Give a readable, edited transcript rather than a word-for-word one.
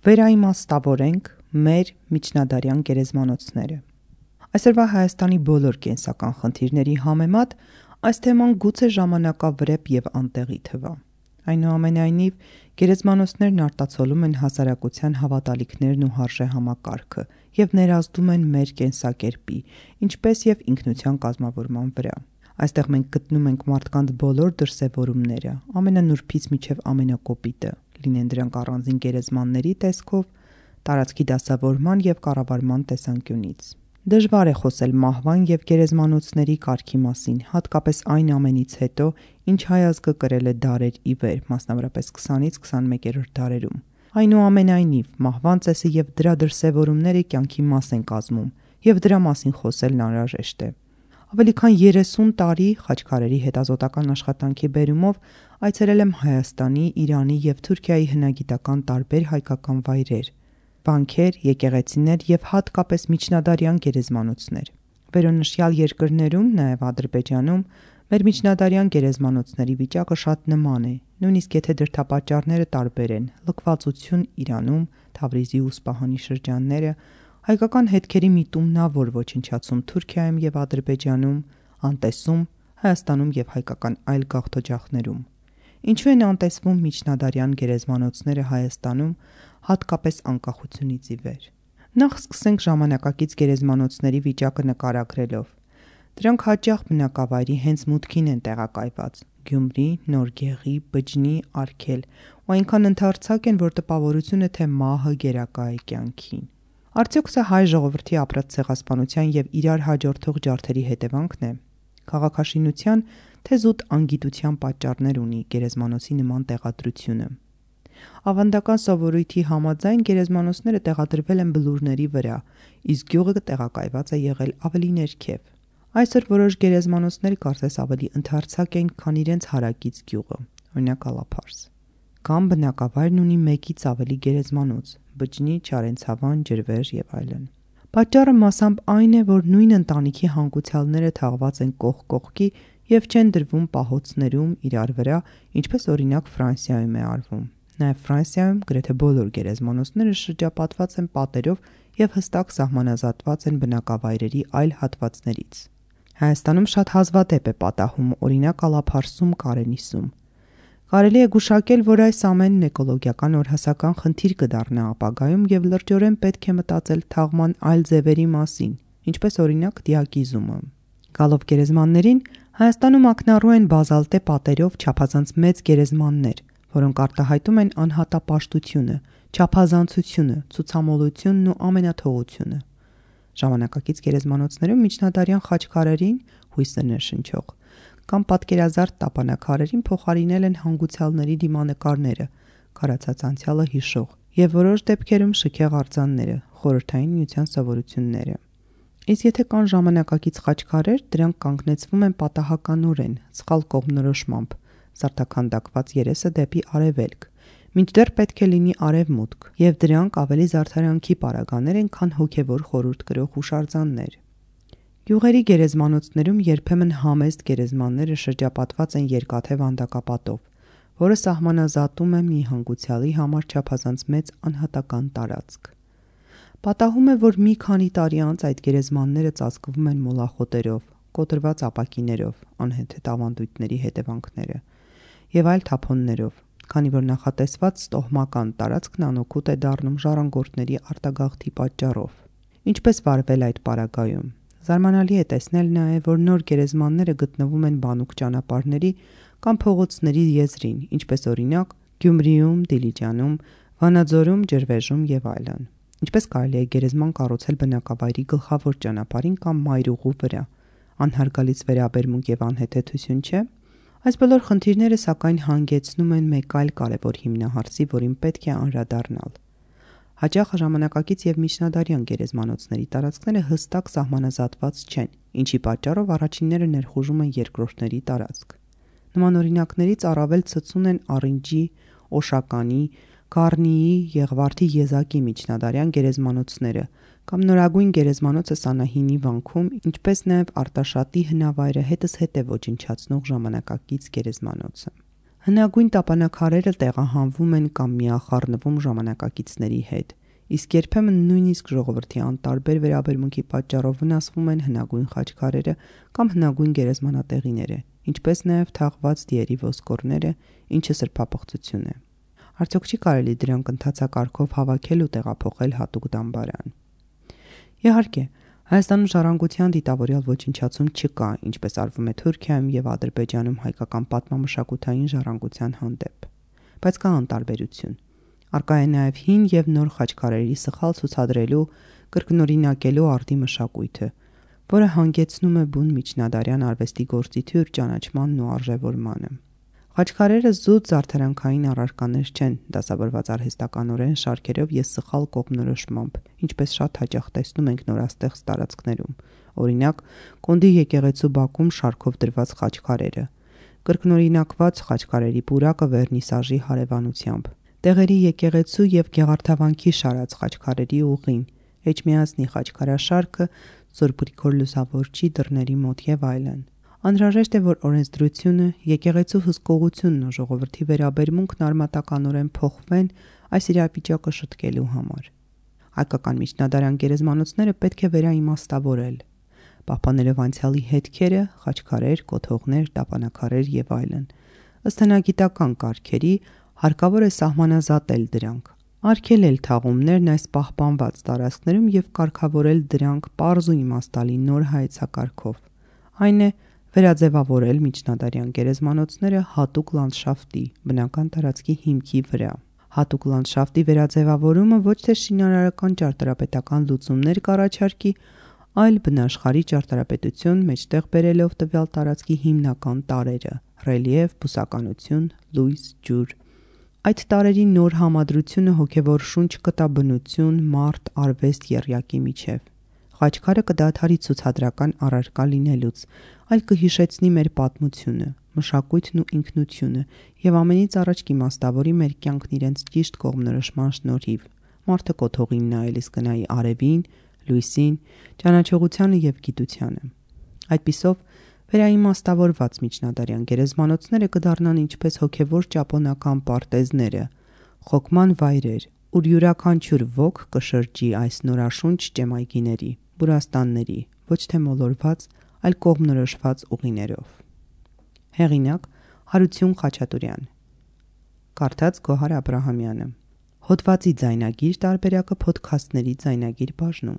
Վերաիմաստավորենք մեր միջնադարյան գերեզմանոցները։ Այսօրվա Հայաստանի բոլոր կենսական խնդիրների համեմատ այս թեման գուցե ժամանակավրեպ և անտեղի թվա։ Այնուամենայնիվ, գերեզմանոցներն արտացոլում են հասարակության հավատալիքներն ու հարժեհամակարգը և ներազդում են մեր կենսակերպի, ինչպես և ինքնության կազմավորման վրա։ Այստեղ մենք գտնում ենք մարդկանց բոլոր դրսևորումները, ամենանուրբից մինչև ամենակոպիտը, լինեն դրանք առանձին գերեզմանների տեսքով, տարածքի դասավորման և կառավարման տեսանկյունից։ Դժվար է խոսել մահվան և գերեզմանոցների կարգի մասին, հատկապես այն ամենից հետո, ինչ հայ ազգը կրել է դարեր ի վեր, մասնավորապես 20-ից 21-րդ դարերում։ Այնուամենայնիվ, մահվան ծեսը և դրա դրսևորումները կյանքի մաս են կազմում, և դրա մասին խոսելն անհրաժեշտ է։ Ավելի քան 30 տարի խաչքարերի հետազոտական աշխատանքի բերումով այցելել եմ Հայաստանի, Իրանի և Թուրքիայի հնագիտական տարբեր հայկական վայրեր, վանքեր, եկեղեցիներ և հատկապես միջնադարյան գերեզմանոցներ։ Վերոնշյալ երկրներում, նաև Ադրբեջանում, մեր միջնադարյան գերեզմանոցների վիճակը շատ նման է, նույնիսկ եթե դրդապատճառները տարբեր են՝ լքվածություն Իրանում, Թավրիզի ու Սպահանի շրջանները, հայկական հետքերի միտումնավոր ոչնչացում Թուրքիայում և Ադրբեջանում, անտեսում Հայաստանում և հայկական այլ գաղթօջախներում։ Ինչու են անտեսվում միջնադարյան գերեզմանոցները Հայաստանում, հատկապես անկախությունից ի վեր։ Նախ սկսենք ժամանակակից գերեզմանոցների վիճակը նկարագրելով։ Դրանք հաճախ բնակավայրի հենց մուտքին են տեղակայված՝ Գյումրի, Նոր Գեղի, Բջջնի, Արգել, ու այնքան ընդարձակ են, որ տպավորություն է, թե մահը գերակա է կյանքին։ Արդյոք սա հայ ժողովրդի ապրած ցեղասպանության և իրար հաջորդող ջարդերի հետևանքն է։ Քաղաքաշինության, թե զուտ անգիտության պատճառներ ունի գերեզմանոցի նման տեղադրությունը։ Ավանդական սովորույթի համաձայն գերեզմանոցները տեղադրվել են բլուրների վրա, իսկ գյուղը տեղակայված է եղել ավելի ներքև։ Այսօր որոշ գերեզմանոցներ կարծես ավելի ընդարձակ են, քան իրենց հարակից գյուղը, օրինակ Ալափարս։ Կամ բնակավայրն ունի մեկից ավելի գերեզմանոց՝ Բջջնի, Չարենցավան, Ջրվեժ և այլն։ Պատճառը մասամբ այն է, որ նույն ընտանիքի հանգուցյալները թաղված են կողք կողքի և չեն դրվում պահոցներում իրար վրա, ինչպես օրինակ Ֆրանսիայում է արվում։ Նաև Ֆրանսիայում գրեթե բոլոր գերեզմանոցները շրջապատված են պատերով և հստակ սահմանազատված են բնակավայրերի այլ հատվածներից։ Հայաստանում շատ հազվադեպ է պատահում, օրինակ Ալափարսում, Կարենիսում։ Կարելի է գուշակել, որ այս ամենն էկոլոգիական օրհասական խնդիր կդառնա ապագայում և լրջորեն պետք է մտածել թաղման այլ ձևերի մասին, ինչպես օրինակ դիակիզումը։ Գալով գերեզմաններին, Հայաստանում ակնառու են բազալտե պատերով չափազանց մեծ գերեզմաններ, որոնք արտահայտում են անհատապաշտությունը, չափազանցությունը, ցուցամոլությունն ու ամենաթողությունը։ Ժամանակակից գերեզմանոցներում միջնադարյան խաչքարերին, հույսը ներշնչող, կամ պատկերազարդ տապանաքարերին փոխարինել են հանգուցյալների դիմանկարները, քարացած անցյալը հիշող, և որոշ դեպքերում շքեղ արձանները, Խորհրդային Միության սովորությունները։ Իսկ եթե կան ժամանակակից խաչքարեր, դրանք կանգնեցվում են պատահականորեն, սխալ կողմնորոշմամբ, զարդաքանդակված երեսը դեպի արևելք, մինչդեռ պետք է լինի արևմուտք, և դրանք ավելի զարդարանքի պարագաներ են, քան հոգևոր խորհուրդ կրող հուշարձաններ։ Գյուղերի գերեզմանոցներում երբեմն համեստ գերեզմանները շրջապատված են երկաթե վանդակապատով, որը սահմանազատում է մի հանգուցյալի համար չափազանց մեծ անհատական տարածք։ Պատահում է, որ մի քանի տարի անց այդ գերեզմանները ծածկվում են մոլախոտերով, կոտրված ապակիներով, անհեթեթ ավանդույթների հետևանքները, և այլ թափոններով, քանի որ նախատեսված ստոհմական տարածքն անօգուտ է դառնում ժառանգորդների արտագաղթի պատճառով։ Ինչպես վարվել այդ պարագայում։ Զարմանալի է տեսնել նաև, որ նոր գերեզմանները գտնվում են բանուկ ճանապարհների կամ փողոցների եզրին, ինչպես օրինակ Գյումրիում, Դիլիջանում, Վանաձորում, Ջրվեժում և այլն։ Ինչպես կարելի է գերեզման կառուցել բնակավայրի գլխավոր ճանապարհին կամ մայրուղու վրա, անհարգալից վերաբերմունք և անհեթեթություն չէ։ Այս բոլոր խնդիրները սակայն հանգեցնում են մեկ այլ կարևոր հիմնահարցի, որին պետք է անդրադառնալ։ Հաճախ ժամանակակից և միջնադարյան գերեզմանոցների տարածքները հստակ սահմանազատված չեն, ինչի պատճառով առաջինները ներխուժում են երկրորդների տարածք։ Նման օրինակներից առավել ցցուն են Առինջի, Օշականի, Գառնիի, Եղվարդի եզակի միջնադարյան գերեզմանոցները կամ նորագույն գերեզմանոցը Սանահինի վանքում, ինչպես նաև Արտաշատի հնավայրը հետզհետե ոչնչացնող ժամանակակից գերեզմանոցը։ Հնագույն տապանակարերը տեղահանվում են կամ միախառնվում ժամանակակիցների հետ, իսկ երբեմն նույնիսկ ժողովրդի անտարբեր վերաբերմունքի պատճառով վնասվում են հնագույն խաչքարերը կամ հնագույն գերեզմանատեղիները, ինչպես նաև թաղված դիերի ոսկորները, ինչը սրբապղծություն է։ Արդյոք չի կարելի դրանք ընթացակարգով հավաքել ու տեղափոխել հատուկ դամբարան։ Իհարկե, Հայաստանում ժառանգության դիտավորյալ ոչնչացում չկա, ինչպես արվում է Թուրքիայում և Ադրբեջանում հայկական պատմամշակութային ժառանգության հանդեպ, բայց կա անտարբերություն։ Առկա է նաև հին և նոր խաչքարերի սխալ ցուցադրելու, կրկնօրինակելու արդի մշակույթը, որը հանգեցնում է բուն միջնադարյան արվեստի գործիթյուր ճանաչմանն ու արժևորմանը։ Խաչքարերը զուտ զարդարանքային առարկաներ չեն, դասավորված արհեստականորեն շարքերով և սխալ կողմնորոշմամբ, ինչպես շատ հաճախ տեսնում ենք նորաստեղծ տարածքներում, օրինակ Կոնդի եկեղեցու բակում շարքով դրված խաչքարերը, կրկնօրինակված խաչքարերի պուրակը վերնիսաժի հարևանությամբ, Տեղերի եկեղեցու և Գեղարդավանքի շարած խաչքարերի ուղին, Էջմիածնի խաչքարաշարքը, Սուրբ Գրիգոր Լուսավորչի դռների մոտ և այլն։ Անհրաժեշտ է, որ օրենսդրությունը, եկեղեցու հսկողությունն ու ժողովրդի վերաբերմունքն արմատականորեն փոխվեն այս իրավիճակը շտկելու համար։ Հայկական միջնադարյան գերեզմանոցները պետք է վերաիմաստավորել, պահպանելով անցյալի հետքերը, խաչքարեր, կոթողներ, տապանակարեր և այլն։ Ըստ հնագիտական կարգերի հարկավոր է սահմանազատել դրանք, արգելել թաղումներն այս պահպանված տարածքներում և կարգավորել դրանք պարզ ու իմաստալի նոր հայեցակարգով, այն է վերաձևավորել միջնադարյան գերեզմանոցները հատուկ լանդշաֆտի, բնական տարածքի հիմքի վրա։ Հատուկ լանդշաֆտի վերաձևավորումը ոչ թե շինարարական ճարտարապետական լուծումներ կառաջարկի, այլ բնաշխարհի ճարտարապետություն մեջտեղ բերելով տվյալ տարածքի հիմնական տարրերը՝ ռելիեֆ, բուսականություն, լույս, ջուր։ Այդ տարրերի նոր համադրությունը հոգևոր շունչ կտա բնություն, մարդ, արվեստ, եռյակի միջև։ Խաչքարը կդադարի ցուցադրական առարկա լինելուց, այլ կհիշեցնի մեր պատմությունը, մշակույթն ու ինքնությունը և ամենից առաջ կիմաստավորի մեր կյանքն իրենց ճիշտ կողմնորոշման շնորհիվ։ Մարդը կոթողին նայելիս կնայի արևին, լույսին, ճանաչողությանը և գիտությանը։ Այդպիսով վերաիմաստավորված միջնադարյան գերեզմանոցները կդառնան ինչպես հոգևոր ճապոնական պարտեզները, խոկման վայրեր, ուր յուրաքանչյուր ոք կշրջի այս նորաշունչ ճեմայգիների, բուրաստանների, ոչ թե մոլորված, այլ կողմնորոշված ուղիներով։ Հեղինակ՝ Հարություն Խաչատուրյան։ Կարդաց Գոհար Աբրահամյանը։ Հոդվածի ձայնագիր տարբերակը Փոդքասթների ձայնագիր բաժնում։